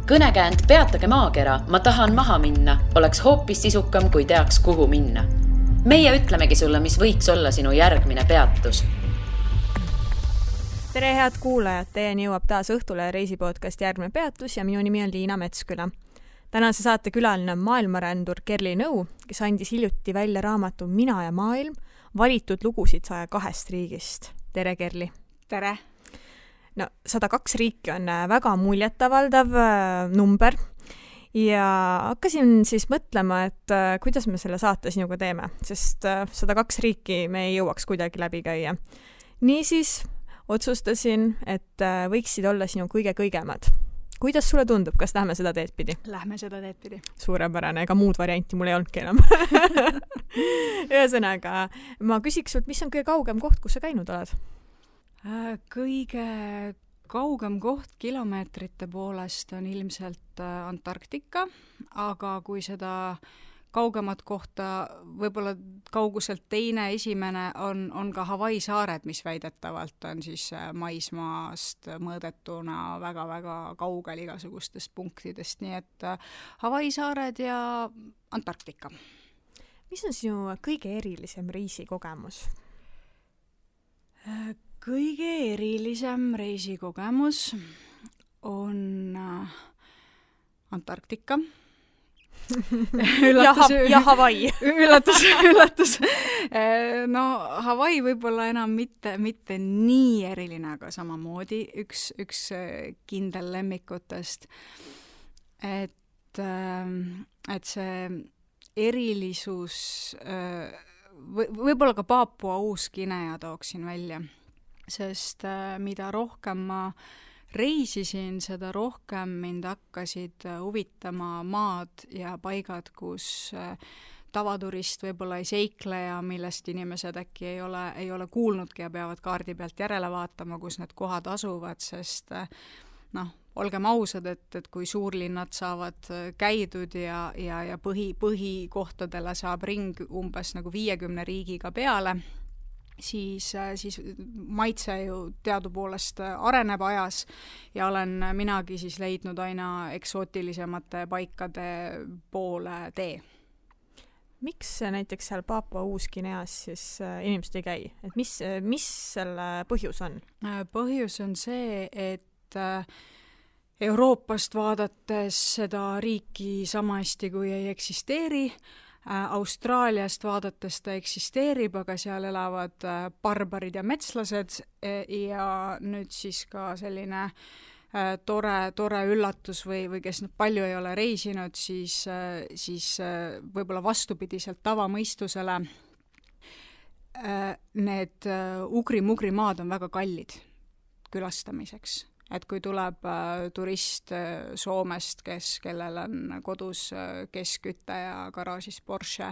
Kõnekäänd Peatage maakera, ma tahan maha minna, oleks hoopis sisukam, kui teaks, kuhu minna. Meie ütlemegi sulle, mis võiks olla sinu järgmine peatus. Tere head kuulajad, teieni jõuab taas Õhtule reisipodcast Järgmine peatus ja minu nimi on Liina Metsküla. Tänase saate külaline on maailmarändur Kerli Nõu, kes andis hiljuti välja raamatu Mina ja maailm, valitud lugusid 102 riigist. Tere Kerli! Tere! No, 102 riiki on väga muljetavaldav number ja hakkasin siis mõtlema, et kuidas me selle saate sinuga teeme, sest 102 riiki me ei jõuaks kuidagi läbi käia. Niisiis otsustasin, et võiksid olla sinu kõige-kõigemad. Kuidas sulle tundub, kas lähme seda teed pidi? Lähme seda teed pidi. Suurepärane, ega muud varianti mul ei olnudki enam. Ühesõnaga, ma küsiks sult, mis on kõige kaugem koht, kus sa käinud oled? Kõige kaugem koht kilomeetrite poolest on ilmselt Antarktika, aga kui seda kaugemat kohta, võib-olla kauguselt teine, esimene on ka Hawaii saared, mis väidetavalt on siis maismaast mõõdetuna väga-väga kaugel igasugustest punktidest, nii et Hawaii saared ja Antarktika. Mis on sinu kõige erilisem reisikogemus? Kõige erilisem reisikogemus on Antarktika. Ja Hawaii. Üllatus. No, Hawaii võib-olla enam mitte nii eriline, aga samamoodi üks kindel lemmikutest. Et see erilisus, võib-olla ka Paapua Uus-Guinea tooksin välja, sest mida rohkem ma reisisin, seda rohkem mind hakkasid huvitama maad ja paigad, kus tavaturist võib-olla ei seikle ja millest inimesed äkki ei ole kuulnudki ja peavad kaardi pealt järele vaatama, kus need kohad asuvad, sest olgem ausad, et kui suurlinnad saavad käidud ja põhikohtadele saab ring umbes nagu 50 riigiga peale, siis maitse ju teadupoolest areneb ajas ja olen minagi siis leidnud aina eksootilisemate paikade poole tee. Miks näiteks seal Paapua Uus-Guineas siis inimesed ei käi? Et mis selle põhjus on? Põhjus on see, et Euroopast vaadates seda riiki sama hästi kui ei eksisteeri, Austraaliast vaadates ta eksisteerib, aga seal elavad barbarid ja metslased ja nüüd siis ka selline tore üllatus või kes palju ei ole reisinud, siis võib-olla vastupidiselt tavamõistusele need ugri-mugri maad on väga kallid külastamiseks. Et kui tuleb turist Soomest, kellel on kodus keskkütte ja garaažis Porsche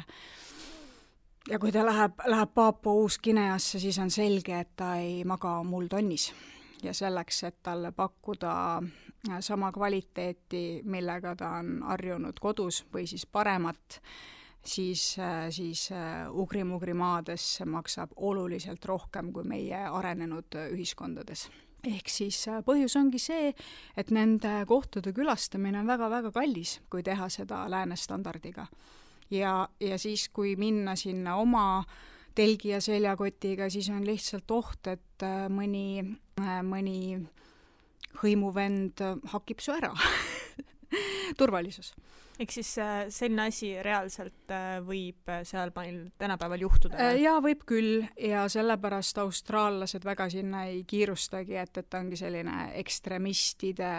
ja kui ta läheb Paapua Uus-Guineasse, siis on selge, et ta ei maga muldonnis ja selleks, et talle pakkuda sama kvaliteeti, millega ta on harjunud kodus või siis paremat, siis ugri-mugri maades maksab oluliselt rohkem kui meie arenenud ühiskondades. Ehk siis põhjus ongi see, et nende kohtade külastamine on väga-väga kallis, kui teha seda läänestandardiga. Ja siis, kui minna sinna oma telgi ja seljakotiga, siis on lihtsalt oht, et mõni hõimuvend hakib su ära. Turvalisus. Ehk siis selline asi reaalselt võib seal meil tänapäeval juhtuda? Jaa, võib küll ja sellepärast austraallased väga sinna ei kiirustagi, et ongi selline ekstremistide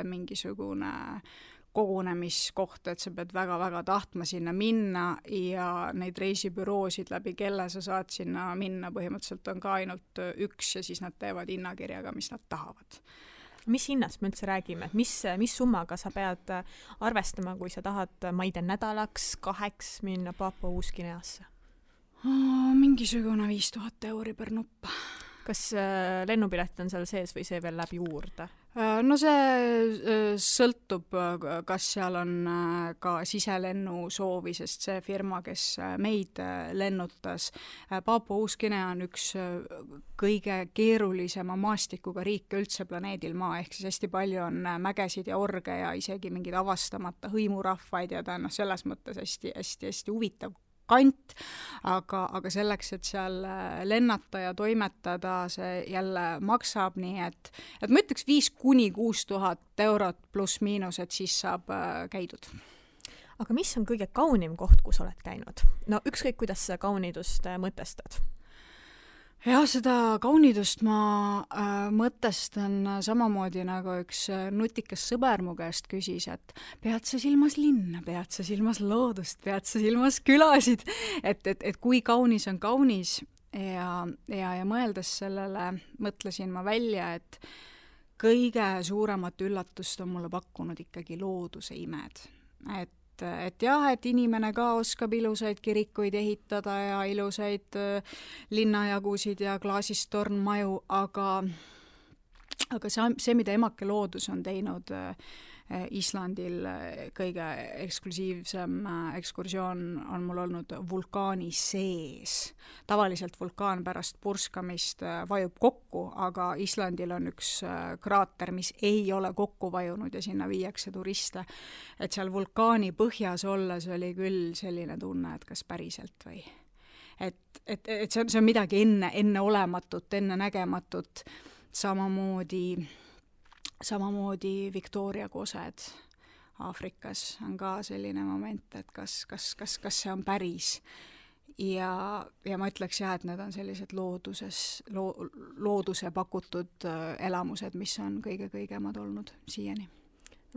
mingisugune kogunemiskoht, et sa pead väga-väga tahtma sinna minna ja neid reisibüroosid läbi kelle sa saad sinna minna, põhimõtteliselt on ka ainult üks ja siis nad teevad hinnakirjaga, mis nad tahavad. Mis hinnast me üldse räägime? Mis summaga sa pead arvestama, kui sa tahad, ma ei tea, nädalaks 2 minna Paapua Uus-Guineasse? Mingisugune 5000 € per nupp. Kas lennupilet on seal sees või see veel läbi juurde? No see sõltub, kas seal on ka siselennu soovi, sest see firma, kes meid lennutas, Paapua-Uus-Guinea on üks kõige keerulisema maastikuga riike üldse planeedil Maa, ehk siis hästi palju on mägesid ja orge ja isegi mingeid avastamata hõimurahvaid ja ta on selles mõttes hästi huvitav kant, aga selleks, et seal lennata ja toimetada, see jälle maksab, nii et ma ütleks 5,000–6,000 eurot pluss miinus, et siis saab käidud. Aga mis on kõige kaunim koht, kus oled käinud? No ükskõik, kuidas sa kaunidust mõtestad? Jah, seda kaunidust ma mõtestan samamoodi nagu üks nutikas sõber mu käest küsis, et pead sa silmas linna, pead sa silmas loodust, pead sa silmas külasid, et kui kaunis on kaunis ja mõeldes sellele mõtlesin ma välja, et kõige suuremat üllatust on mulle pakkunud ikkagi looduse imed, et jah, et inimene ka oskab ilusaid kirikuid ehitada ja ilusaid linnajagusid ja klaasist tornmaju, aga see, mida emake loodus on teinud Islandil, kõige eksklusiivsem ekskursioon on mul olnud vulkaani sees. Tavaliselt vulkaan pärast purskamist vajub kokku, aga Islandil on üks kraater, mis ei ole kokku vajunud ja sinna viiakse turiste. Et seal vulkaani põhjas olles oli küll selline tunne, et kas päriselt või. Et see on midagi enne olematut, enne nägematut, samamoodi Victoria kosed Aafrikas on ka selline moment, et kas see on päris. Ja ma ütleks jah, et need on sellised looduse pakutud elamused, mis on kõige-kõigemad olnud siiani.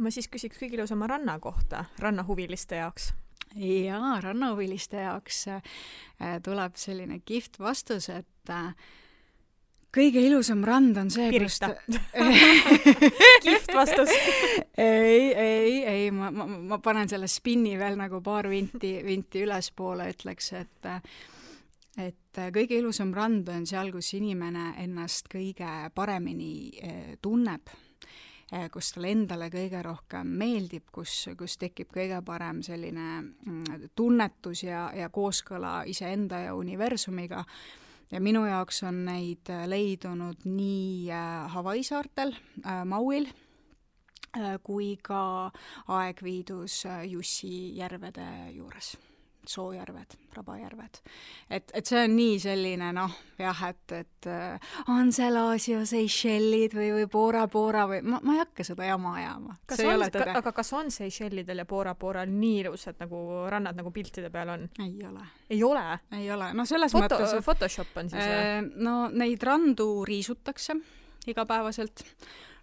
Ma siis küsiks kõige ilusama ranna kohta, rannahuviliste jaoks. Jaa, rannahuviliste jaoks tuleb selline kihvt vastus, et kõige ilusam rand on see, Pirita. Kihvt vastus. Ei, ma panen selle spinni veel nagu paar vinti ülespoole, ütleks, et kõige ilusam rand on seal, kus inimene ennast kõige paremini tunneb, kus talle endale kõige rohkem meeldib, kus tekib kõige parem selline tunnetus ja kooskõla iseenda ja universumiga. Ja minu jaoks on neid leidunud nii Hawaii saartel, Mauil, kui ka Aegviidus Jussi järvede juures. Soojärved, Rabajärved. Et see on nii selline, jah, et on Selasio, Seychellid või Bora või ma ei hakka seda jama ajama. Aga kas on Seychellidel ja Boral nii ilusad nagu rannad nagu piltide peal on? Ei ole. Ei ole? Ei ole. No selles mõttes... Photoshop on siis? No neid randu riisutakse igapäevaselt.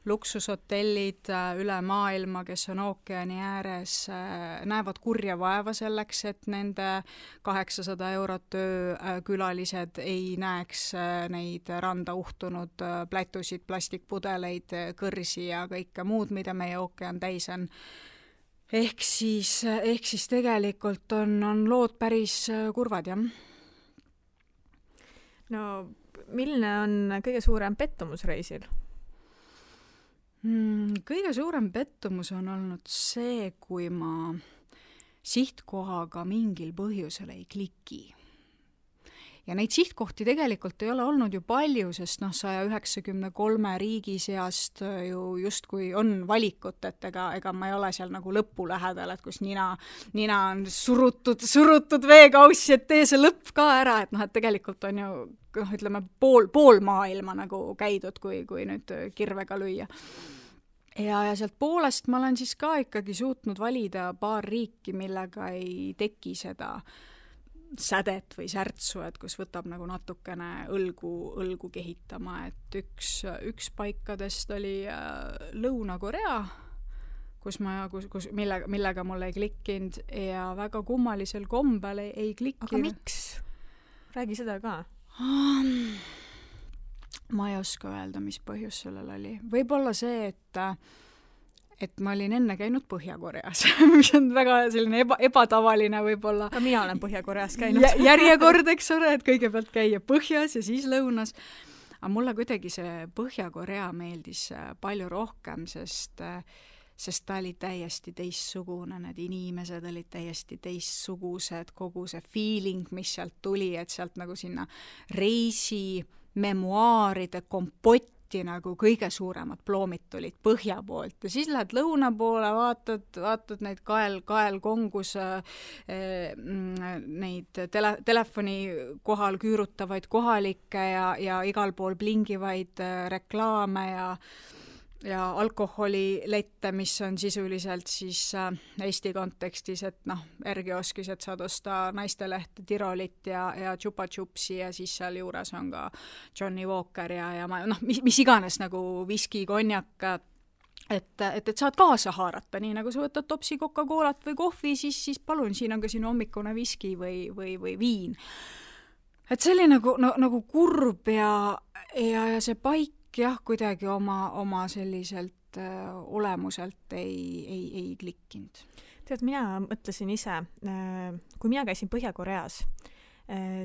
Luksushotellid üle maailma, kes on ookeani ääres, näevad kurja vaeva selleks, et nende 800 eurot külalised ei näeks neid randa uhtunud plätusid, plastikpudeleid, kõrsi ja kõike muud, mida meie ookean täis on. Ehk siis tegelikult on lood päris kurvad, jah. No, milline on kõige suurem pettumus reisil? Kõige suurem pettumus on olnud see, kui ma sihtkohaga mingil põhjusel ei kliki. Ja neid sihtkohti tegelikult ei ole olnud ju palju, sest 193 riigi seast ju justkui on valikut, et ega ma ei ole seal nagu lõppu lähedal, et kus nina on surutud veekaussi, et tee see lõpp ka ära, et tegelikult on ju ütleme pool maailma nagu käidud, kui nüüd kirvega lüüa. Ja sealt poolest ma olen siis ka ikkagi suutnud valida paar riiki, millega ei teki seda sädet või särtsu, et kus võtab nagu natukene õlgu kehitama, et üks paikadest oli Lõuna-Korea, millega mul ei klikkinud ja väga kummalisel kombel ei klikkinud. Aga miks? Räägi seda ka. Ma ei oska öelda, mis põhjus sellel oli. Võib-olla see, et ma olin enne käinud Põhja-Koreas, mis on väga selline ebatavaline võib-olla. Ka mina olen Põhja-Koreas käinud. Järjekord, eks ole, et kõigepealt käia põhjas ja siis lõunas. aga mulle kuidagi see Põhja-Korea meeldis palju rohkem, sest ta oli täiesti teistsugune, need inimesed olid täiesti teistsugused, kogu see feeling, mis sealt tuli, et sealt nagu sinna reisi memuaaride kompotti nagu kõige suuremad ploomid tulid põhja poolt ja siis lähed lõuna poole, vaatad neid kaelkongus neid telefoni kohal küürutavaid kohalikke ja igal pool blingivaid reklaame ja alkoholilette, mis on sisuliselt siis Eesti kontekstis, et R-kioskis, et saad osta naistelehte, Tirolit ja Chupa Chupsi ja siis seal juures on ka Johnny Walker ja mis iganes nagu viski, konjak, et saad kaasa haarata, nii nagu sa võtad topsi Coca-Colat või kohvi, siis palun, siin on ka sinu hommikune viski või viin. Et see oli nagu kurb ja see paik jah, kuidagi oma selliselt olemuselt ei klikkinud. Tead, mina mõtlesin ise, kui mina käisin Põhja-Koreas,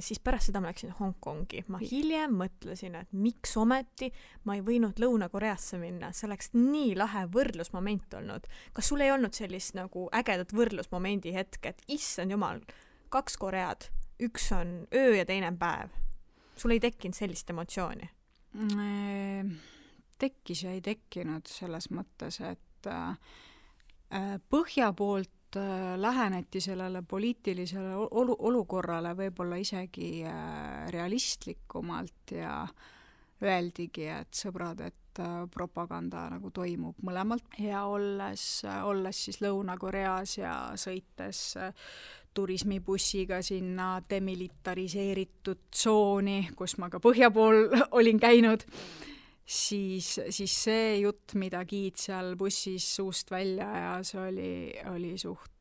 siis pärast seda ma läksin Hongkongi. Ma hiljem mõtlesin, et miks ometi ma ei võinud Lõuna-Koreasse minna. See oleks nii lahe võrdlusmoment olnud. Kas sul ei olnud sellist nagu ägedat võrdlusmomendi hetke, et issand jumal, 2 Koread, üks on öö ja teine päev. Sul ei tekkinud sellist emotsiooni? Tekkis ja ei tekkinud selles mõttes, et põhja poolt läheneti sellele poliitilisele olukorrale võib-olla isegi realistlikumalt ja öeldigi, et sõbrad, et propaganda nagu toimub mõlemalt ja olles siis Lõuna-Koreas ja sõites turismibussiga sinna demilitariseeritud tsooni, kus ma ka põhja pool olin käinud, siis see jutt, mida Giid seal bussis suust välja ja see oli suht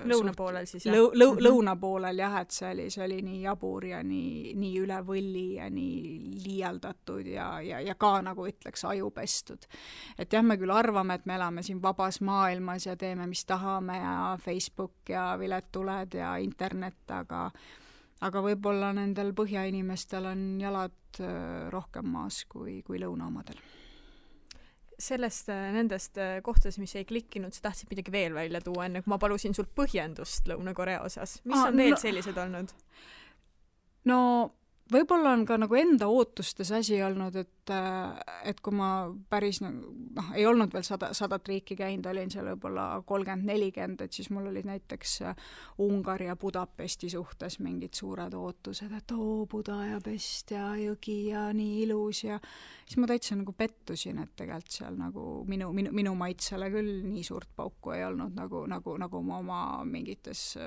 lõunapoolel siis jah? Lõunapoolel jah, et see oli nii jabur ja nii üle võlli ja nii liialdatud ja ka nagu ütleks ajupestud. Et jah, me küll arvame, et me elame siin vabas maailmas ja teeme, mis tahame ja Facebook ja viletuled ja internet, aga võib-olla nendel põhjainimestel on jalad rohkem maas kui lõunaomadel. Nendest kohtades, mis ei klikkinud, sa tahtsid midagi veel välja tuua, enne kui ma palusin sult põhjendust Lõuna-Korea osas. Mis on veel sellised olnud? No võib-olla on ka nagu enda ootustes asi olnud, et kui ma päris ei olnud veel 100 riiki käinud, olin seal võib-olla 30-40, et siis mul olid näiteks Ungari ja Budapesti suhtes mingid suured ootused, et Budapest ja jõgi ja nii ilus ja siis ma täitsa nagu pettusin, et tegelikult seal nagu minu maitsele küll nii suurt pauku ei olnud, nagu ma oma mingites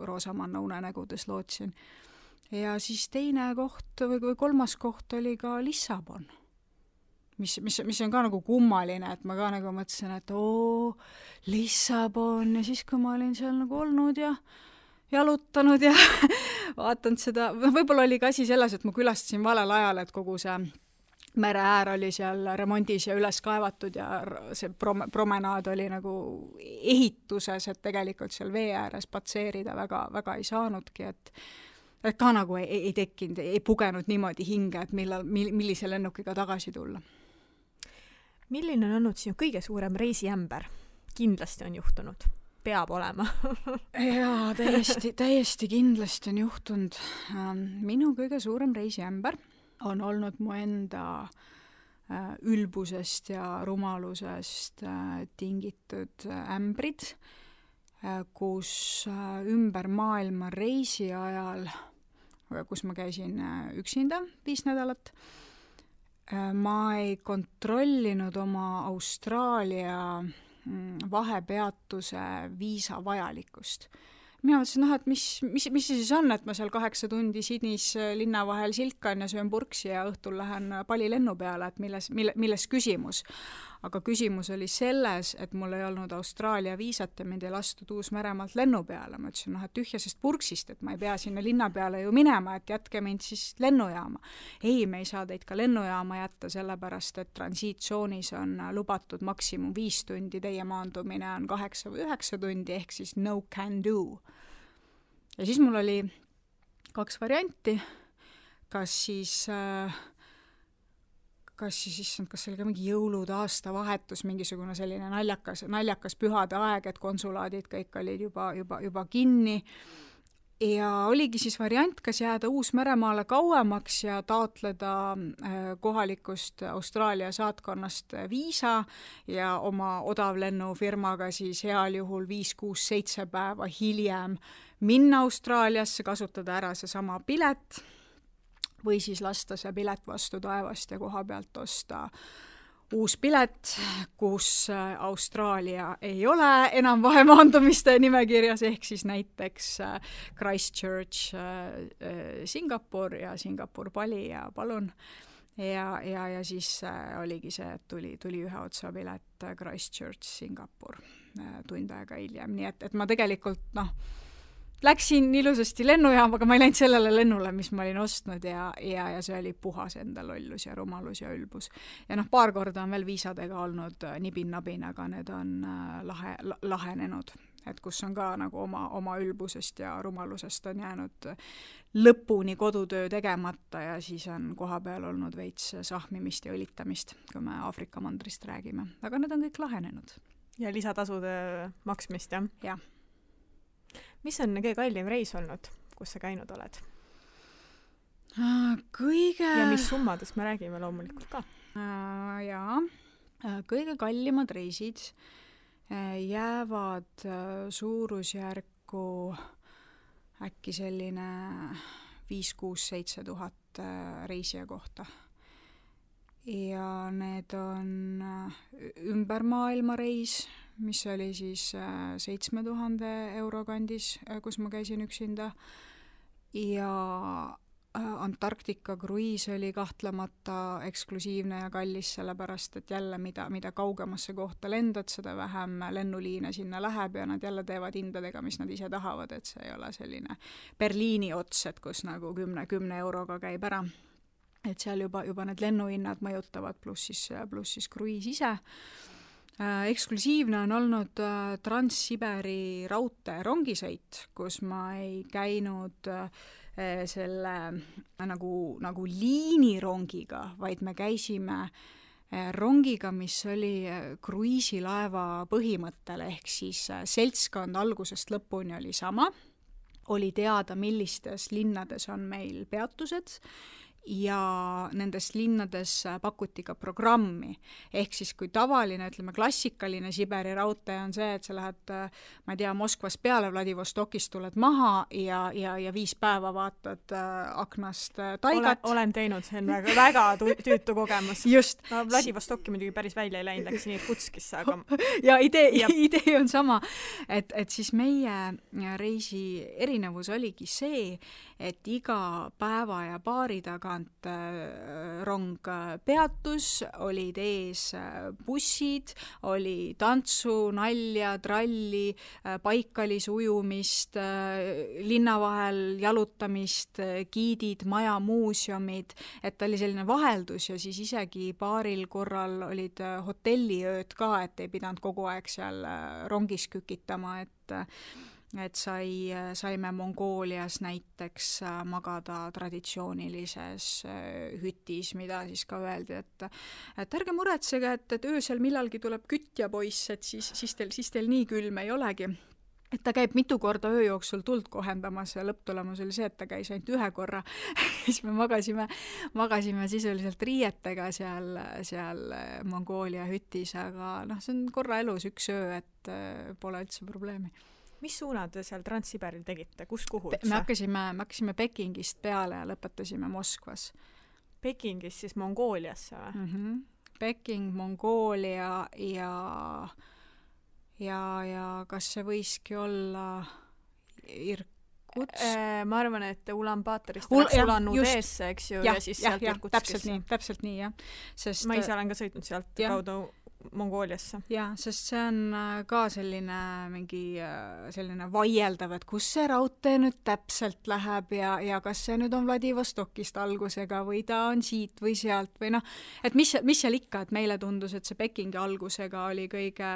roosamanna unenägudes lootsin. Ja siis teine koht või 3. koht oli ka Lissabon, mis on ka nagu kummaline, et ma ka nagu mõtlesin, et Lissabon ja siis kui ma olin seal nagu olnud ja jalutanud ja vaatanud seda, võib-olla oli ka asi selles, et ma külastasin valel ajal, et kogu see mereäär oli seal remondis ja üles kaevatud ja see promenaad oli nagu ehituses, et tegelikult seal vee ääres patseerida väga ei saanudki, et ka nagu ei tekkinud, ei pugenud niimoodi hinge, et millise lennukiga tagasi tulla. Milline on olnud sinu kõige suurem reisiämber? Kindlasti on juhtunud. Peab olema. Jaa, täiesti kindlasti on juhtunud. Minu kõige suurem reisiämber on olnud mu enda ülbusest ja rumalusest tingitud ämbrid, kus ümber maailma reisi ajal, kus ma käisin üksinda 5 nädalat, ma ei kontrollinud oma Austraalia vahepeatuse viisa vajalikkust. Mina mõtlesin, et mis see siis on, et ma seal 8 tundi Sydneys linna vahel silkan ja söön purksi ja õhtul lähen Pali lennu peale, et milles küsimus. Aga küsimus oli selles, et mul ei olnud Austraalia viisat ja mind ei lastud Uus-Meremaalt lennu peale. Ma ütlesin, et tühjasest purksist, et ma ei pea sinna linna peale ju minema, et jätke mind siis lennujaama. Ei, me ei saa teid ka lennujaama jätta, sellepärast, et transiitsoonis on lubatud maksimum 5 tundi, teie maandumine on 8 või 9 tundi, ehk siis no can do. Ja siis mul oli 2 varianti, kas siis kas see oli ka mingi jõulud, aastavahetus, mingisugune selline naljakas pühade aeg, et konsulaadid kõik olid juba kinni. Ja oligi siis variant, kas jääda Uus-Meremaale kauemaks ja taotleda kohalikust Austraalia saatkonnast viisa ja oma odavlennufirmaga siis heal juhul 5, 6, 7 päeva hiljem minna Austraaliasse, kasutada ära seesama pilet või siis lasta see pilet vastu taevast ja koha pealt osta uus pilet, kus Austraalia ei ole enam vahemaandumiste nimekirjas, ehk siis näiteks Christchurch, Singapur ja Singapur Bali ja palun. Ja siis oligi see, et tuli ühe otsa pilet Christchurch, Singapur tund aega hiljem, nii et ma tegelikult läksin ilusasti lennujaama, aga ma ei läinud sellele lennule, mis ma olin ostnud ja see oli puhas enda lollus ja rumalus ja ülbus. Ja paar korda on veel viisadega olnud nibin-nabin, aga need on lahenenud, et kus on ka nagu oma ülbusest ja rumalusest on jäänud lõpuni kodutöö tegemata ja siis on koha peal olnud veits sahmimist ja õlitamist, kui me Aafrika mandrist räägime. Aga need on kõik lahenenud. Ja lisatasude maksmist, jah? Jah. Mis on kõige kallim reis olnud, kus sa käinud oled? Ja mis summadest me räägime loomulikult ka? Jaa, kõige kallimad reisid jäävad suurusjärku äkki selline 5, 6, 7 tuhat reisija kohta. Ja need on ümber maailma reis, mis oli siis 7000 euro kandis, kus ma käisin üksinda. Ja Antarktika kruiis oli kahtlemata eksklusiivne ja kallis, sellepärast, et jälle mida kaugemasse kohta lendad, seda vähem lennuliine sinna läheb ja nad jälle teevad hindadega, mis nad ise tahavad, et see ei ole selline Berliini ots, et kus nagu 10 euroga käib ära. Et seal juba need lennuhinnad mõjutavad, pluss siis kruiis ise. Eksklusiivne on olnud Trans-Siberi raudtee rongisõit, kus ma ei käinud selle nagu liinirongiga, vaid me käisime rongiga, mis oli kruiisilaeva põhimõttel, ehk siis seltskond algusest lõpuni oli sama, oli teada, millistes linnades on meil peatused ja nendes linnades pakuti ka programmi. Ehk siis kui tavaline, ütleme, klassikaline Siberi raudtee on see, et sa lähed, ma ei tea, Moskvas peale, Vladivostokist tuled maha ja 5 päeva vaatad aknast taigat. Olen teinud, see on väga tüütu kogemus. Just. No, Vladivostokki muidugi päris välja ei läinud, läks nii Kutskisse, aga... Ja idee on sama, et siis meie reisi erinevus oligi see, et iga päeva ja paari taga rong peatus, olid ees bussid, oli tantsu, nalja, tralli, paikalis ujumist, linna vahel jalutamist, giidid, maja, muuseumid, et oli selline vaheldus ja siis isegi paaril korral olid hotelliööd ka, et ei pidanud kogu aeg seal rongis kükitama, et saime Mongoolias näiteks magada traditsioonilises hütis, mida siis ka öeldi, et ärge muretsege, et öösel millalgi tuleb kütja poiss, et siis teil nii külm ei olegi. Et ta käib mitu korda öö jooksul tuld kohendamas ja lõpptulemus oli see, et ta käis ainult 1 korra. Siis me magasime sisuliselt riietega seal Mongoolia hütis, aga see on korra elus 1 öö, et pole üldse probleemi. Mis suunad te seal Trans-Siberil tegite? Kuhu me hakkasime Pekingist peale ja lõpetasime Moskvas. Pekingist siis Mongooliasse või? Peking, Mongoolia ja kas see võiski olla Irkutsk? Ma arvan, et Ulan-Batorist läks Ulan-Udeesse, eks ju, ja siis sealt Irkutskisse. Täpselt nii, jah. Ma ise olen ka sõitnud sealt kaudu Mongooliasse. Jaa, sest see on ka selline mingi selline vaieldav, et kus see raudtee nüüd täpselt läheb ja kas see nüüd on Vladivostokist algusega või ta on siit või sealt või noh, et mis seal ikka, et meile tundus, et see Pekingi algusega oli kõige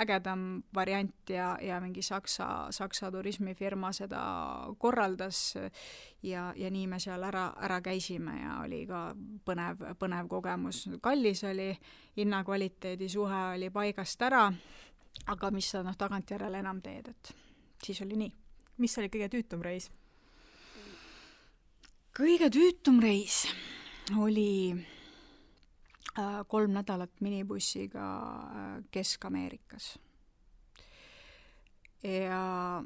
ägedam variant ja mingi Saksa turismifirma seda korraldas ja nii me seal ära käisime ja oli ka põnev kogemus. Kallis oli, hinnakvaliteedi suhe oli paigast ära, aga mis sa tagantjärele enam teed, et siis oli nii. Mis oli kõige tüütum reis? Kõige tüütum reis oli 3 nädalat minibussiga Kesk-Ameerikas. Ja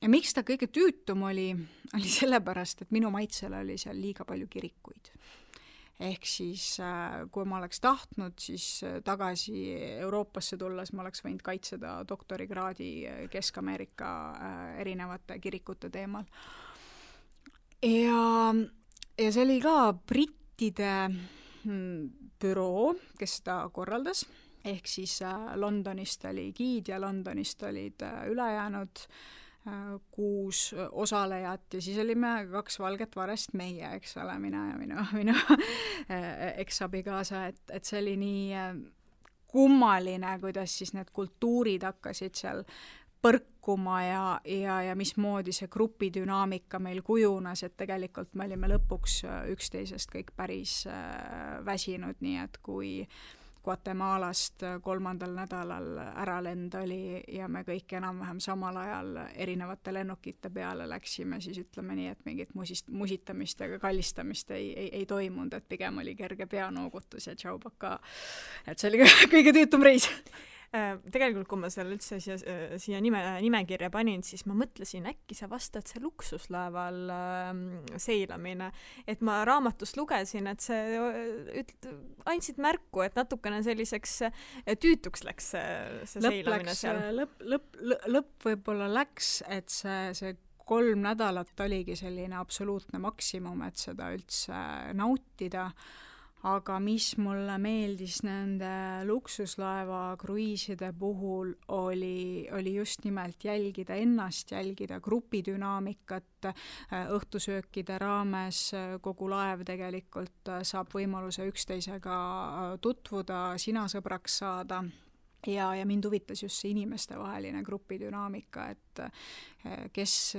miks ta kõige tüütum oli sellepärast, et minu maitsele oli seal liiga palju kirikuid. Ehk siis, kui ma oleks tahtnud, siis tagasi Euroopasse tulles ma oleks võinud kaitseda doktorikraadi Kesk-Ameerika erinevate kirikute teemal. Ja see oli ka brittide büroo, kes seda korraldas. Ehk siis Londonist oli giid ja Londonist olid ülejäänud 6 osalejat ja siis olime 2 valget varest meie, eks ole, mina ja minu eksabikaasa, et see oli nii kummaline, kuidas siis need kultuurid hakkasid seal põrkuma ja mismoodi see grupidünaamika meil kujunes, et tegelikult me olime lõpuks üksteisest kõik päris väsinud, nii et kui Guatemalast 3. nädalal äralend oli ja me kõik enam-vähem samal ajal erinevate lennukite peale läksime, siis ütleme nii, et mingit musitamist ja kallistamist ei toimunud, et pigem oli kerge peanoogutus ja tšaubaka. Et see oli kõige tüütum reis. Tegelikult, kui ma seal üldse siia nimekirja panin, siis ma mõtlesin, äkki sa vastad see luksuslaeval seilamine. Et ma raamatust lugesin, et see andsid märku, et natukene selliseks tüütuks läks see seilamine seal. Lõpp võib-olla läks, et see 3 nädalat oligi selline absoluutne maksimum, et seda üldse nautida. Aga mis mulle meeldis nende luksuslaeva kruiiside puhul oli just nimelt jälgida ennast, jälgida grupidünaamikat, õhtusöökide raames kogu laev tegelikult saab võimaluse üksteisega tutvuda, sina sõbraks saada. Ja mind huvitas just see inimestevaheline grupidünaamika, et kes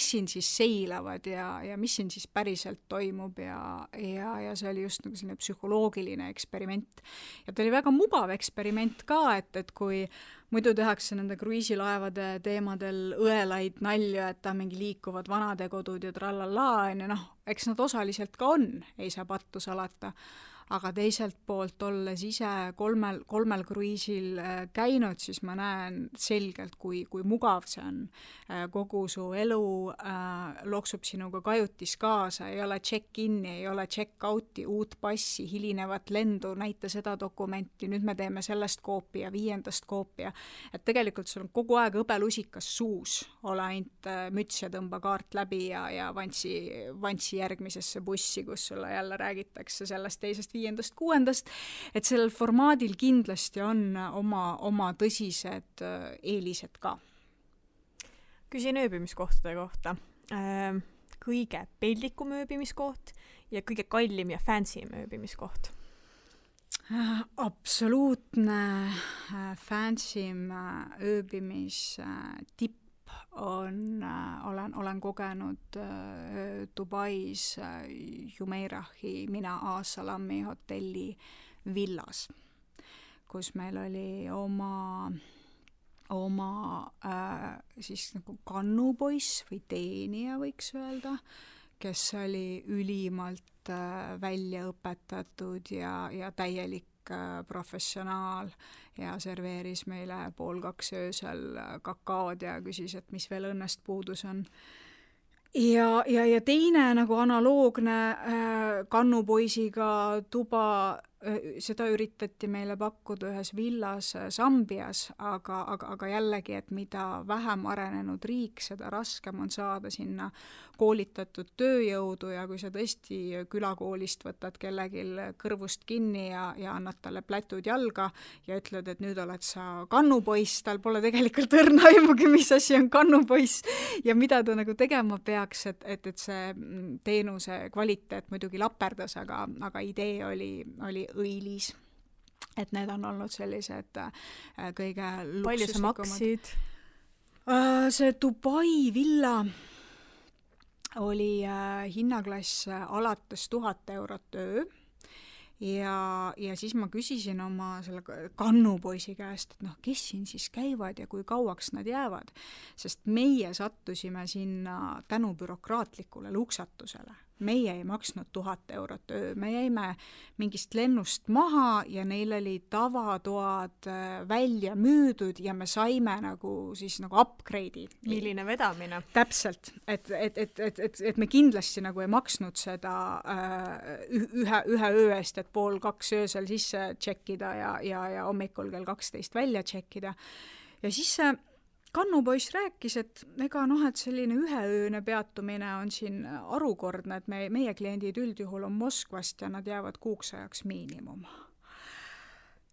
siin siis seilavad ja mis siin siis päriselt toimub ja see oli just nagu selline psühholoogiline eksperiment. Ja ta oli väga mugav eksperiment ka, et kui muidu tehakse nende kruiisilaevade teemadel õelaid nalju, et ta mingi liikuvad vanadekodud ja trallallaa, eks nad osaliselt ka on, ei saa pattu salata. Aga teiselt poolt olles ise 3 kruiisil käinud, siis ma näen selgelt, kui mugav see on. Kogu su elu loksub sinuga kajutis kaasa, ei ole check-in'i, ei ole check-out'i, uut passi, hilinevat lendu, näita seda dokumenti, nüüd me teeme sellest koopi ja 5. koopi. Et tegelikult sul on kogu aeg õbelusikas suus, ole ainult müts ja tõmba kaart läbi ja vantsi järgmisesse bussi, kus sulle jälle räägitakse sellest teisest 5., 6., et sellel formaadil kindlasti on oma tõsised eelised ka. Küsin ööbimiskohtade kohta. Kõige peldikum ööbimiskoht ja kõige kallim ja fancyim ööbimiskoht? Absoluutne fancyim ööbimistipp olen kogenud Dubais Jumeirahi Mina As-Salami hotelli villas, kus meil oli oma siis nagu kannupoiss või teenija võiks öelda, kes oli ülimalt välja õpetatud ja täielik professionaal ja serveeris meile 1:30 öösel kakaod ja küsis, et mis veel õnnest puudus on. Ja teine nagu analoogne kannupoisiga tuba seda üritati meile pakkuda ühes villas Sambias, aga jällegi, et mida vähem arenenud riik, seda raskem on saada sinna koolitatud tööjõudu ja kui sa tõesti külakoolist võtad kellelgi kõrvust kinni ja annad talle plätud jalga ja ütled, et nüüd oled sa kannupoiss, tal pole tegelikult õrna aimugi, mis asi on kannupoiss ja mida ta nagu tegema peaks, et see teenuse kvaliteet muidugi laperdas, aga idee oli õilis. Et need on olnud sellised kõige luksuslikumad. Palju sa maksid? See Dubai villa oli hinnaklass alates 1000 eurot öö ja siis ma küsisin oma selle kannupoisi käest, et kes siin siis käivad ja kui kauaks nad jäävad, sest meie sattusime sinna tänu bürokraatlikule luksatusele. Meie ei maksnud 1000 eurot öö, me jäime mingist lennust maha ja neil oli tavatoad välja müüdud ja me saime nagu upgrade'i. Milline vedamine? Täpselt, et me kindlasti nagu ei maksnud seda ühe öö eest, et 1:30 öösel sisse tšekkida ja hommikul kell 12 välja tšekkida. Ja siis see kannupoiss rääkis, et et selline üheööne peatumine on siin arukordne, et meie kliendid üldjuhul on Moskvast ja nad jäävad kuuks ajaks miinimum.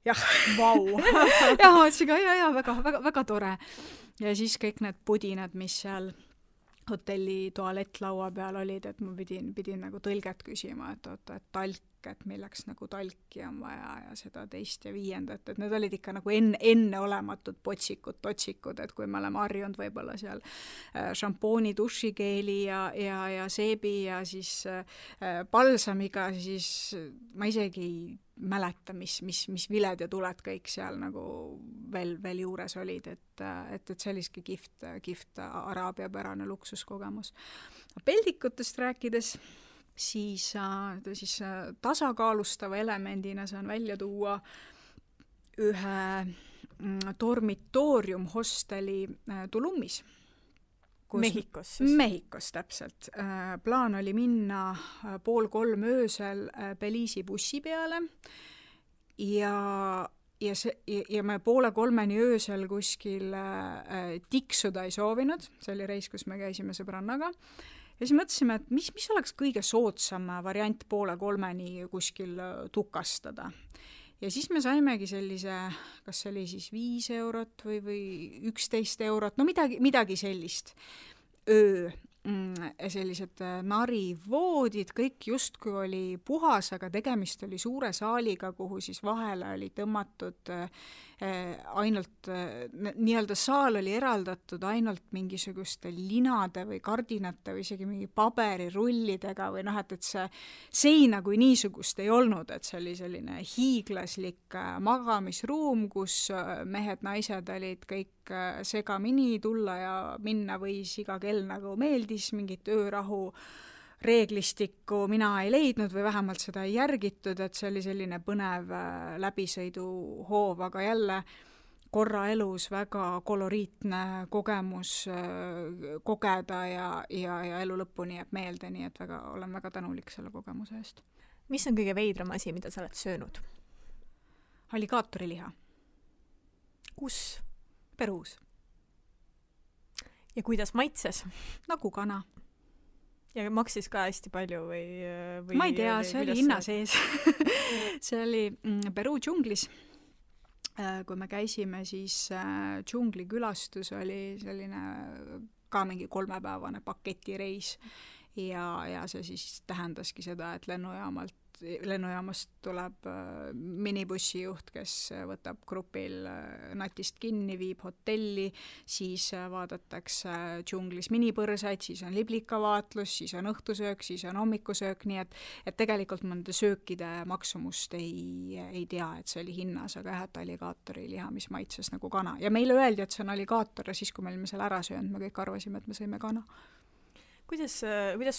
Jah, vau. ja ma ütlesin ka, väga tore. Ja siis kõik need pudinad, mis seal hotelli tualettlaua peal olid, et ma pidin nagu tõlget küsima, et talk, et milleks nagu talki on vaja ja seda teist ja viiendat, et need olid ikka nagu enneolematud totsikud, et kui me oleme harjunud võib-olla seal šampooni, dušikeeli ja seebi ja siis palsamiga, siis ma isegi ei mäleta, mis viled ja tuled kõik seal nagu veel juures olid, et selliski kihvt araabia pärane luksuskogemus. Peldikutest rääkides, siis tasakaalustava elemendina saan välja tuua ühe dormitoorium hosteli Tulummis. Mehhikos siis? Mehhikos, täpselt. Plaan oli minna 2:30 öösel Belize'i bussi peale ja me 2:30 öösel kuskil tiksuda ei soovinud, see oli reis, kus me käisime sõbrannaga. Ja siis mõtlesime, et mis oleks kõige soodsam variant 2:30 kuskil tukastada. Ja siis me saimegi sellise, kas see oli siis 5 eurot või 11 eurot, no midagi sellist öö. Sellised narivoodid, kõik justkui oli puhas, aga tegemist oli suure saaliga, kuhu siis vahele oli tõmmatud ainult, nii-öelda saal oli eraldatud ainult mingisuguste linade või kardinate või isegi mingi paberirullidega või et see seina kui niisugust ei olnud, et see oli selline hiiglaslik magamisruum, kus mehed, naised olid kõik segamini, tulla ja minna võis iga kell nagu meeldis, mingit öörahu reeglistikku mina ei leidnud või vähemalt seda ei järgitud, et see oli selline põnev läbisõiduhoov, aga jälle korra elus väga koloriitne kogemus kogeda ja elu lõpuni jääb meelde, nii et olen väga tänulik selle kogemuse eest. Mis on kõige veidram asi, mida sa oled söönud? Alligaatoriliha. Kus? Peruus. Ja kuidas maitses? Nagu kana. Ja maksis ka hästi palju või ma ei tea, see oli hinna sees. See oli Peruu džunglis. Kui me käisime, siis džunglikülastus oli selline ka mingi 3-päevane paketireis ja see siis tähendaski seda, et lennujaamast tuleb minibussijuht, kes võtab grupil natist kinni, viib hotelli, siis vaadatakse džunglis minipõrsaid, siis on liblikavaatlus, siis on õhtusöök, siis on hommikusöök, nii et tegelikult ma nende söökide maksumust ei tea, et see oli hinnas, aga jah, et alligaatoriliha, mis maitses nagu kana. Ja meile öeldi, et see on alligaator ja siis, kui me olime selle ära söönud, me kõik arvasime, et me sõime kana. Kuidas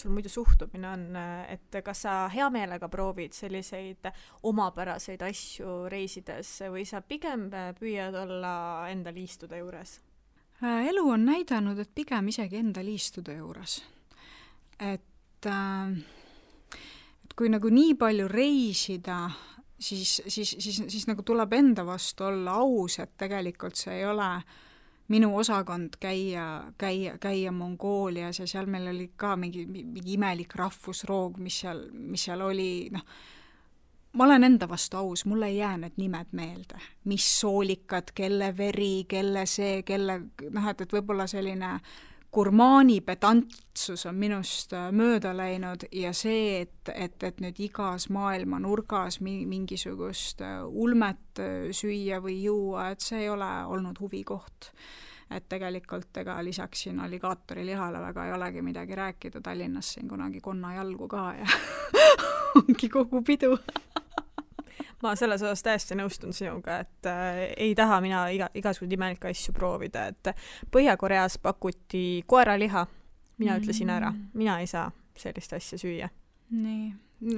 sul muidu suhtumine on, et kas sa hea meelega proovid selliseid omapäraseid asju reisides või sa pigem püüad olla enda liistude juures? Elu on näidanud, et pigem isegi enda liistude juures. Et kui nagu nii palju reisida siis nagu tuleb enda vastu olla aus, et tegelikult see ei ole minu osakond käia Mongoolias ja seal meil oli ka mingi imelik rahvusroog, mis seal oli, noh, ma olen enda vastu aus, mulle ei jää need nimed meelde, mis soolikad, kelle veri, kelle see, noh, et võib-olla selline gurmaani pedantsus on minust mööda läinud ja see, et nüüd igas maailma nurgas mingisugust ulmet süüa või juua, et see ei ole olnud huvikoht. Et tegelikult lisaks siin alligaatori lihale väga ei olegi midagi rääkida, Tallinnas siin kunagi konnajalgu ka ja ongi kogu pidu. Ma selles osas täiesti nõustun sinuga, et ei taha mina igasugused imelikke asju proovida, et Põhja-Koreas pakuti koeraliha, mina ütlesin ära, mina ei saa sellist asja süüa. Nii,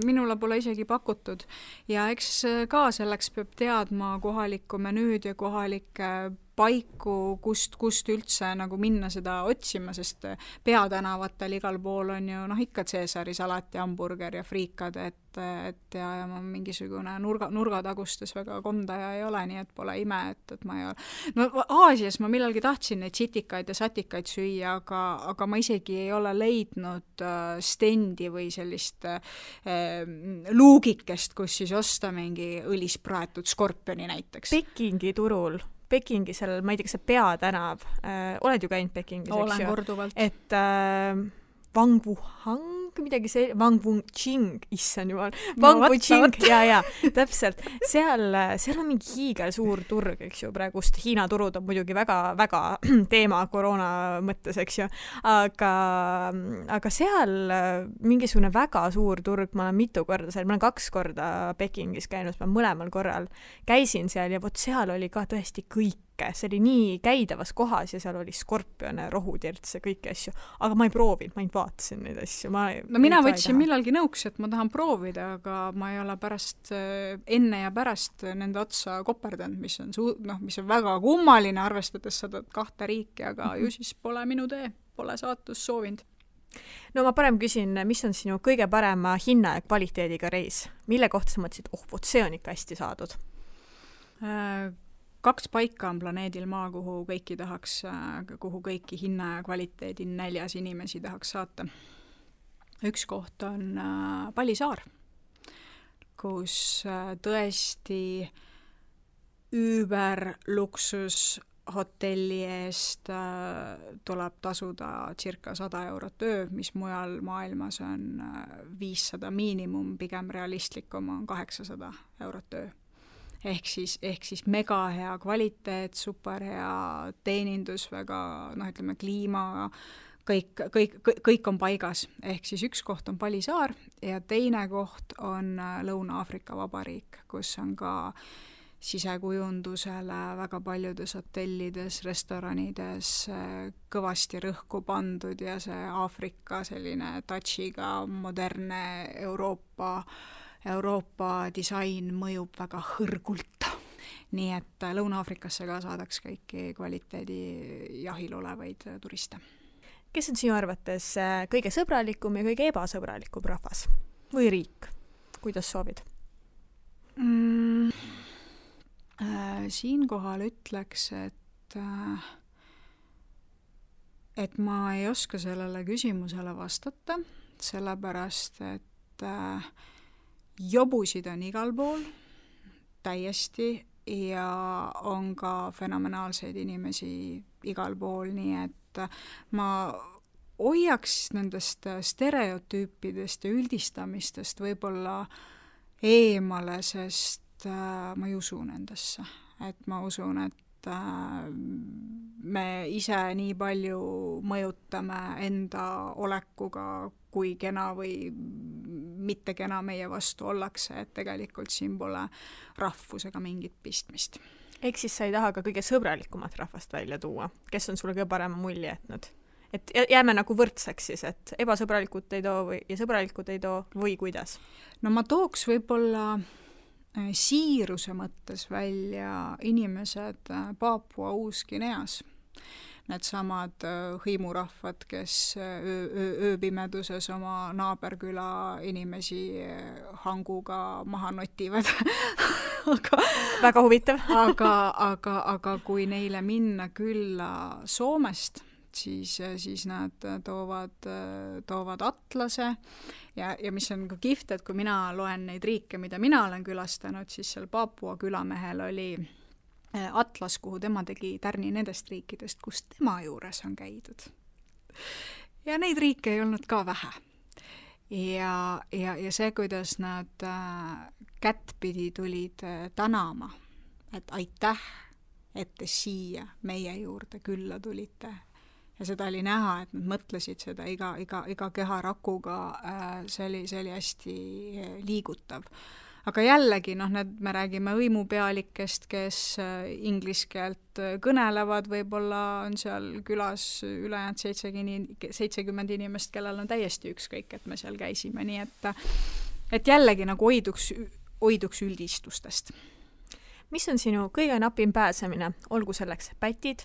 minule pole isegi pakutud ja eks ka selleks peab teadma kohalikku menüüd ja kohalikke paiku, kust üldse nagu minna seda otsima, sest peatänavatel igal pool on ju ikka Caesari salat ja hamburger ja friikad, et ja ma mingisugune nurgatagustes väga kondaja ei ole, nii et pole ime, et ma ei ole. No Aasias ma millalgi tahtsin neid sitikaid ja satikaid süüa, aga ma isegi ei ole leidnud stendi või sellist luugikest, kus siis osta mingi õlis praetud skorpioni näiteks. Pekingi turul. Pekingi seal, ma ei tea, kas see peatänav, oled ju käinud Pekingis, eks ju? Olen korduvalt. Et Wang Wuhang, midagi see, Wang Wuching, issand jumal, Wang Wuching, ja, täpselt. Seal on mingi hiigel suur turg, eks ju, praegust Hiina turud on muidugi väga teema koroona mõttes, eks ju, aga seal mingisugune väga suur turg, ma olen mitu korda seal, ma olen 2 korda Pekingis käinud, ma mõlemal korral käisin seal ja vot seal oli ka tõesti kõik. See oli nii käidavas kohas ja seal oli skorpione, rohutirtse, kõiki asju. Aga ma ei proovinud, ma ainult vaatasin neid asju. No mina võtsin millalgi nõuks, et ma tahan proovida, aga ma ei ole pärast, enne ja pärast nende otsa koperdanud, mis on väga kummaline, arvestades seda 2 riiki, aga ju siis pole minu tee, pole saatus soovinud. No ma parem küsin, mis on sinu kõige parema hinna ja kvaliteediga reis? Mille kohta sa mõtlesid, vot see on ikka hästi saadud? 2 paika on planeedil Maa, kuhu kõiki hinna ja kvaliteedi näljas inimesi tahaks saata. Üks koht on Palisaar, kus tõesti üüberluksus hotelli eest tuleb tasuda circa 100 eurot öö, mis mujal maailmas on 500 miinimum, pigem realistlikum on 800 eurot öö. Ehk siis mega hea kvaliteet, super hea teenindus, väga, ütleme, kliima, kõik on paigas. Ehk siis üks koht on Palisaar ja teine koht on Lõuna-Aafrika Vabariik, kus on ka sisekujundusele väga paljudes hotellides, restoranides kõvasti rõhku pandud ja see Aafrika selline touchiga moderne Euroopa disain mõjub väga hõrgult. Nii et Lõuna-Aafrikasse ka saadaks kõiki kvaliteedi jahil olevaid turiste. Kes on sinu arvates kõige sõbralikum ja kõige ebasõbralikum rahvas? Või riik? Kuidas soovid? Siinkohal ütleks, et ma ei oska sellele küsimusele vastata, sellepärast, et jobusid on igal pool täiesti ja on ka fenomenaalseid inimesi igal pool, nii et ma hoiaks nendest stereotüüpidest ja üldistamistest võib-olla eemale, sest ma ei usu nendesse. Et ma usun, et me ise nii palju mõjutame enda olekuga, kui kena või mitte kena meie vastu ollakse, et tegelikult siin pole rahvusega mingit pistmist. Ehk siis sa ei taha ka kõige sõbralikumat rahvast välja tuua, kes on sulle kõige parema mulje jätnud? Et jääme nagu võrdseks siis, et ebasõbralikud ei too ja sõbralikud ei too või kuidas? No ma tooks võib-olla siiruse mõttes välja inimesed Paapua Uus-Guineas. needsamad hõimurahvad, kes ööpimeduses oma naaberküla inimesi hanguga maha notivad väga huvitav. aga kui neile minna külla Soomest, siis nad toovad atlase ja mis on ka kihvt, et kui mina loen neid riike, mida mina olen külastanud, siis seal Paapua külamehel oli atlas, kuhu tema tegi tärni nendest riikidest, kus tema juures on käidud. Ja neid riike ei olnud ka vähe. Ja see, kuidas nad kättpidi tulid tänama, et aitäh, et te siia meie juurde külla tulite. Ja seda oli näha, et nad mõtlesid seda iga keharakuga, see oli hästi liigutav. Aga jällegi, me räägime hõimupealikest, kes inglise keelt kõnelevad, võib-olla on seal külas ülejäänud 70 inimest, kellel on täiesti ükskõik, et me seal käisime, nii et jällegi nagu hoiduks üldistustest. Mis on sinu kõige napim pääsemine? Olgu selleks pätid,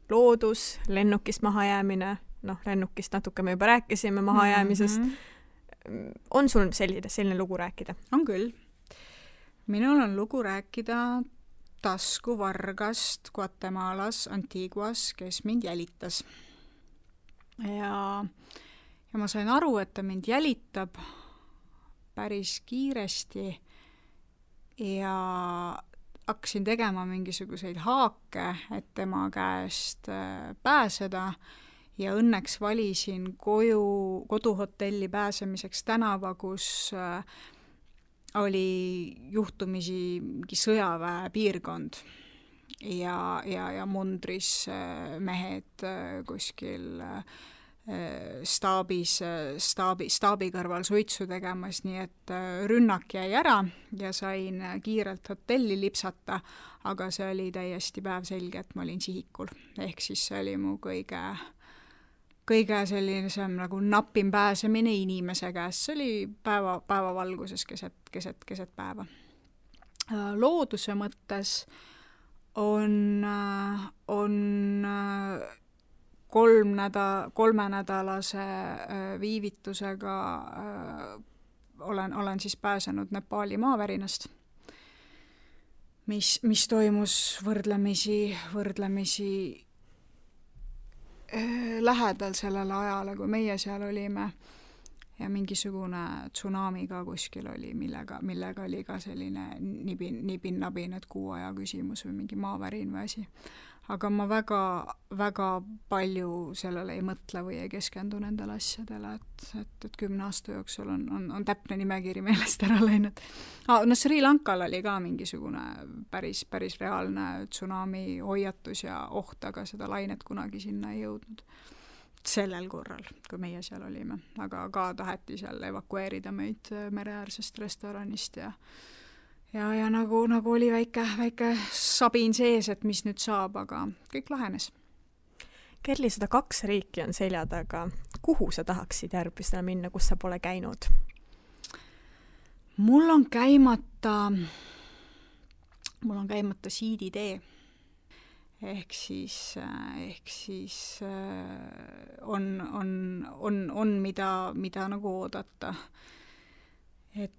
loodus, lennukist mahajäämine, lennukist natuke me juba rääkisime mahajäämisest. On sul selline lugu rääkida? On küll. Minul on lugu rääkida taskuvargast Guatemalas, Antiguas, kes mind jälitas. Ja ma sain aru, et ta mind jälitab päris kiiresti ja hakkasin tegema mingisuguseid haake, et tema käest pääseda ja õnneks valisin koduhotelli pääsemiseks tänava, kus oli juhtumisi mingi sõjaväe piirkond ja mundris mehed kuskil staabi kõrval suitsu tegemas, nii et rünnak jäi ära ja sain kiirelt hotelli lipsata, aga see oli täiesti päevselge, et ma olin sihikul. Ehk siis see oli mu kõige sellisem nagu napim pääsemine inimese käest. See oli päeva valguses keset päeva. Looduse mõttes on kolmenädalase viivitusega olen siis pääsenud Nepaali maavärinast, mis toimus võrdlemisi lähedal sellele ajale, kui meie seal olime ja mingisugune tsunami ka kuskil oli, millega oli ka selline nibin-nabin, et kuu aja küsimus või mingi maavärin või asi. Aga ma väga palju sellele ei mõtle või ei keskendu nendele asjadele, et 10 aasta jooksul on täpne nimekiri meelest ära läinud. Sri Lankal oli ka mingisugune päris reaalne tsunami hoiatus ja oht, aga seda lainet kunagi sinna ei jõudnud. Sellel korral, kui meie seal olime. Aga ka taheti seal evakueerida meid mereäärsest restoranist ja nagu oli väike sabin sees, et mis nüüd saab, aga kõik lahenes. Kerli, 102 riiki on selja taga. Kuhu sa tahaksid järgmisena minna, kus sa pole käinud? Mul on käimata siiditee. Ehk siis on mida nagu oodata. Et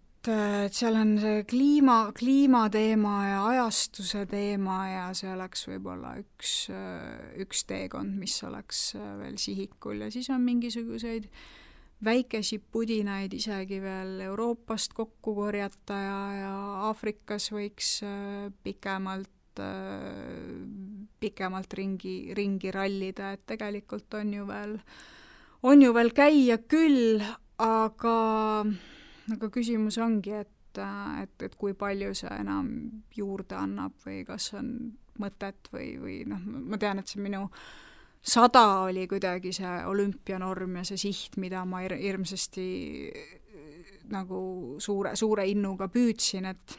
seal on see kliimateema ja ajastuse teema ja see oleks võib-olla üks teekond, mis oleks veel sihikul ja siis on mingisuguseid väikesi pudinaid isegi veel Euroopast kokku korjata ja Aafrikas võiks pikemalt ringi rallida, et tegelikult on ju veel käia küll, aga küsimus ongi, et kui palju see enam juurde annab või kas on mõtet või ma tean, et see minu 100 oli kuidagi see olümpianorm ja see siht, mida ma hirmsasti nagu suure innuga püüdsin, et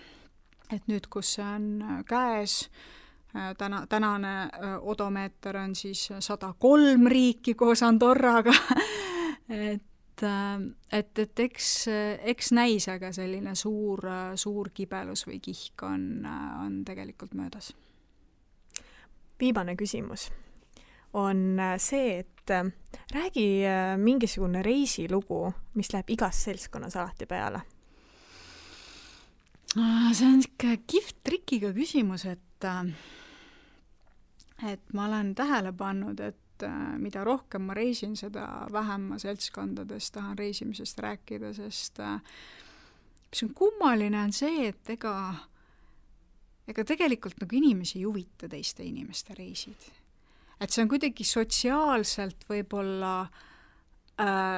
nüüd, kus see on käes, tänane odomeeter on siis 103 riiki koos Andorraga, et eks näis, aga selline suur kibelus või kihk on tegelikult möödas. Viimane küsimus. on see, et räägi mingisugune reisilugu, mis läheb igas seltskonnas alati peale. See on ikka kihvt trikiga küsimus, et ma olen tähele pannud, et mida rohkem ma reisin, seda vähem ma seltskondades tahan reisimisest rääkida, sest mis on kummaline on see, et ega tegelikult nagu inimesi ei huvita teiste inimeste reisid. Et see on kuidagi sotsiaalselt võib-olla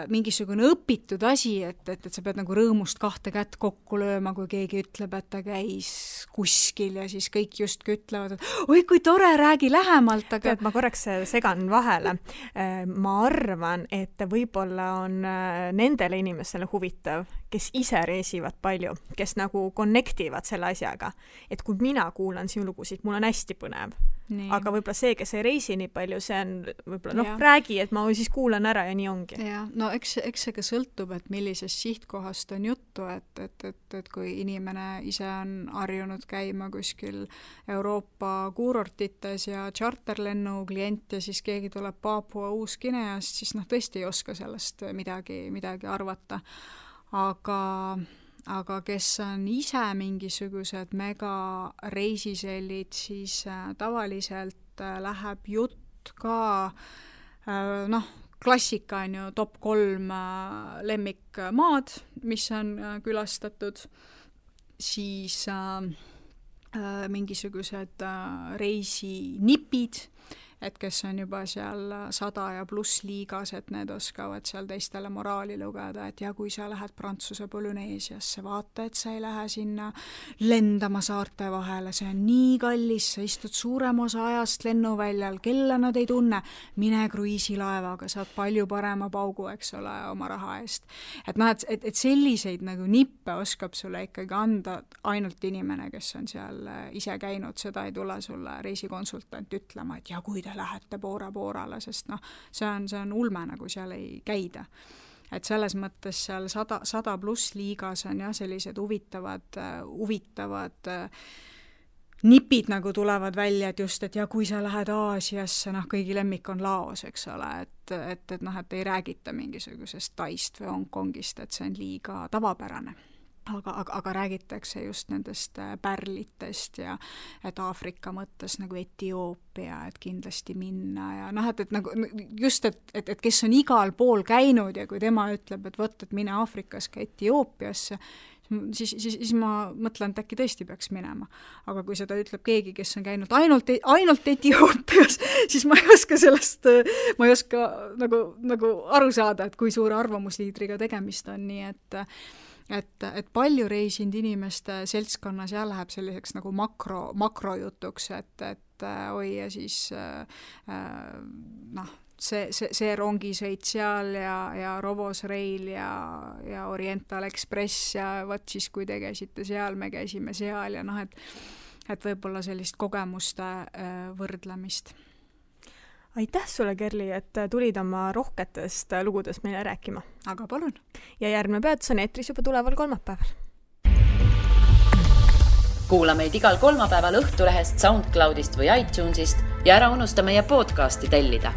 mingisugune õpitud asi, et sa pead nagu rõõmust 2 kätt kokku lööma, kui keegi ütleb, et ta käis kuskil ja siis kõik justkui ütlevad, et oi, kui tore, räägi lähemalt, aga... Tead, ma korraks segan vahele. Ma arvan, et võib-olla on nendele inimestele huvitav, kes ise reisivad palju, kes nagu connectivad selle asjaga. Et kui mina kuulan sinu lugusid, mul on hästi põnev. Nii. Aga võib-olla see, kes ei reisi nii palju, see on võib-olla, räägi, et ma siis kuulan ära ja nii ongi. Ja, no eks see ka sõltub, et millisest sihtkohast on juttu, et kui inimene ise on harjunud käima kuskil Euroopa kuurortites ja charterlennu klient ja siis keegi tuleb Papua Uus-Guineast, siis tõesti ei oska sellest midagi arvata. Aga kes on ise mingisugused mega reisisellid, siis tavaliselt läheb jutt ka, klassika on ju top 3 lemmikmaad, mis on külastatud, siis mingisugused reisinipid, et kes on juba seal 100 ja pluss liigas, et need oskavad seal teistele moraali lugeda, et ja kui sa lähed Prantsuse Polüneesiasse, vaata, et sa ei lähe sinna lendama saarte vahele, see on nii kallis, sa istud suurem osa ajast lennuväljal, kella nad ei tunne, mine kruiisilaevaga, saad palju parema paugu, eks ole, oma raha eest. Et selliseid nagu nippe oskab sulle ikkagi anda ainult inimene, kes on seal ise käinud, seda ei tule sulle reisikonsultant ütlema, et ja kui te lähete Bora-Borale, sest see on ulme, nagu seal ei käida. Et selles mõttes seal 100 pluss liigas on sellised huvitavad nipid nagu tulevad välja, et just, et ja kui sa lähed Aasiasse, kõigi lemmik on Laos, eks ole, et ei räägita mingisugusest Taist või Hongkongist, et see on liiga tavapärane. Aga räägitakse just nendest pärlitest ja et Aafrika mõttes nagu Etioopia, et kindlasti minna ja et nagu just, et kes on igal pool käinud ja kui tema ütleb, et võt, et mine Aafrikas ka Etioopiasse, siis ma mõtlen, et äkki tõesti peaks minema. Aga kui seda ütleb keegi, kes on käinud ainult Etioopias, siis ma ei oska nagu aru saada, et kui suure arvamusliidriga tegemist on, nii et palju reisinud inimeste seltskonnas ja läheb selliseks nagu makrojutuks, et oi ja siis see rongisõit seal ja Rovos Rail ja Oriental Express ja võt siis, kui te käisite seal, me käisime seal ja et võib-olla sellist kogemuste võrdlemist. Aitäh sulle, Kerli, et tulid oma rohketest lugudest meile rääkima. Aga palun. Ja järgmine peatus on eetris juba tuleval kolmapäeval. Kuula meid igal kolmapäeval Õhtulehest, SoundCloudist või iTunesist ja ära unusta meie podcasti tellida.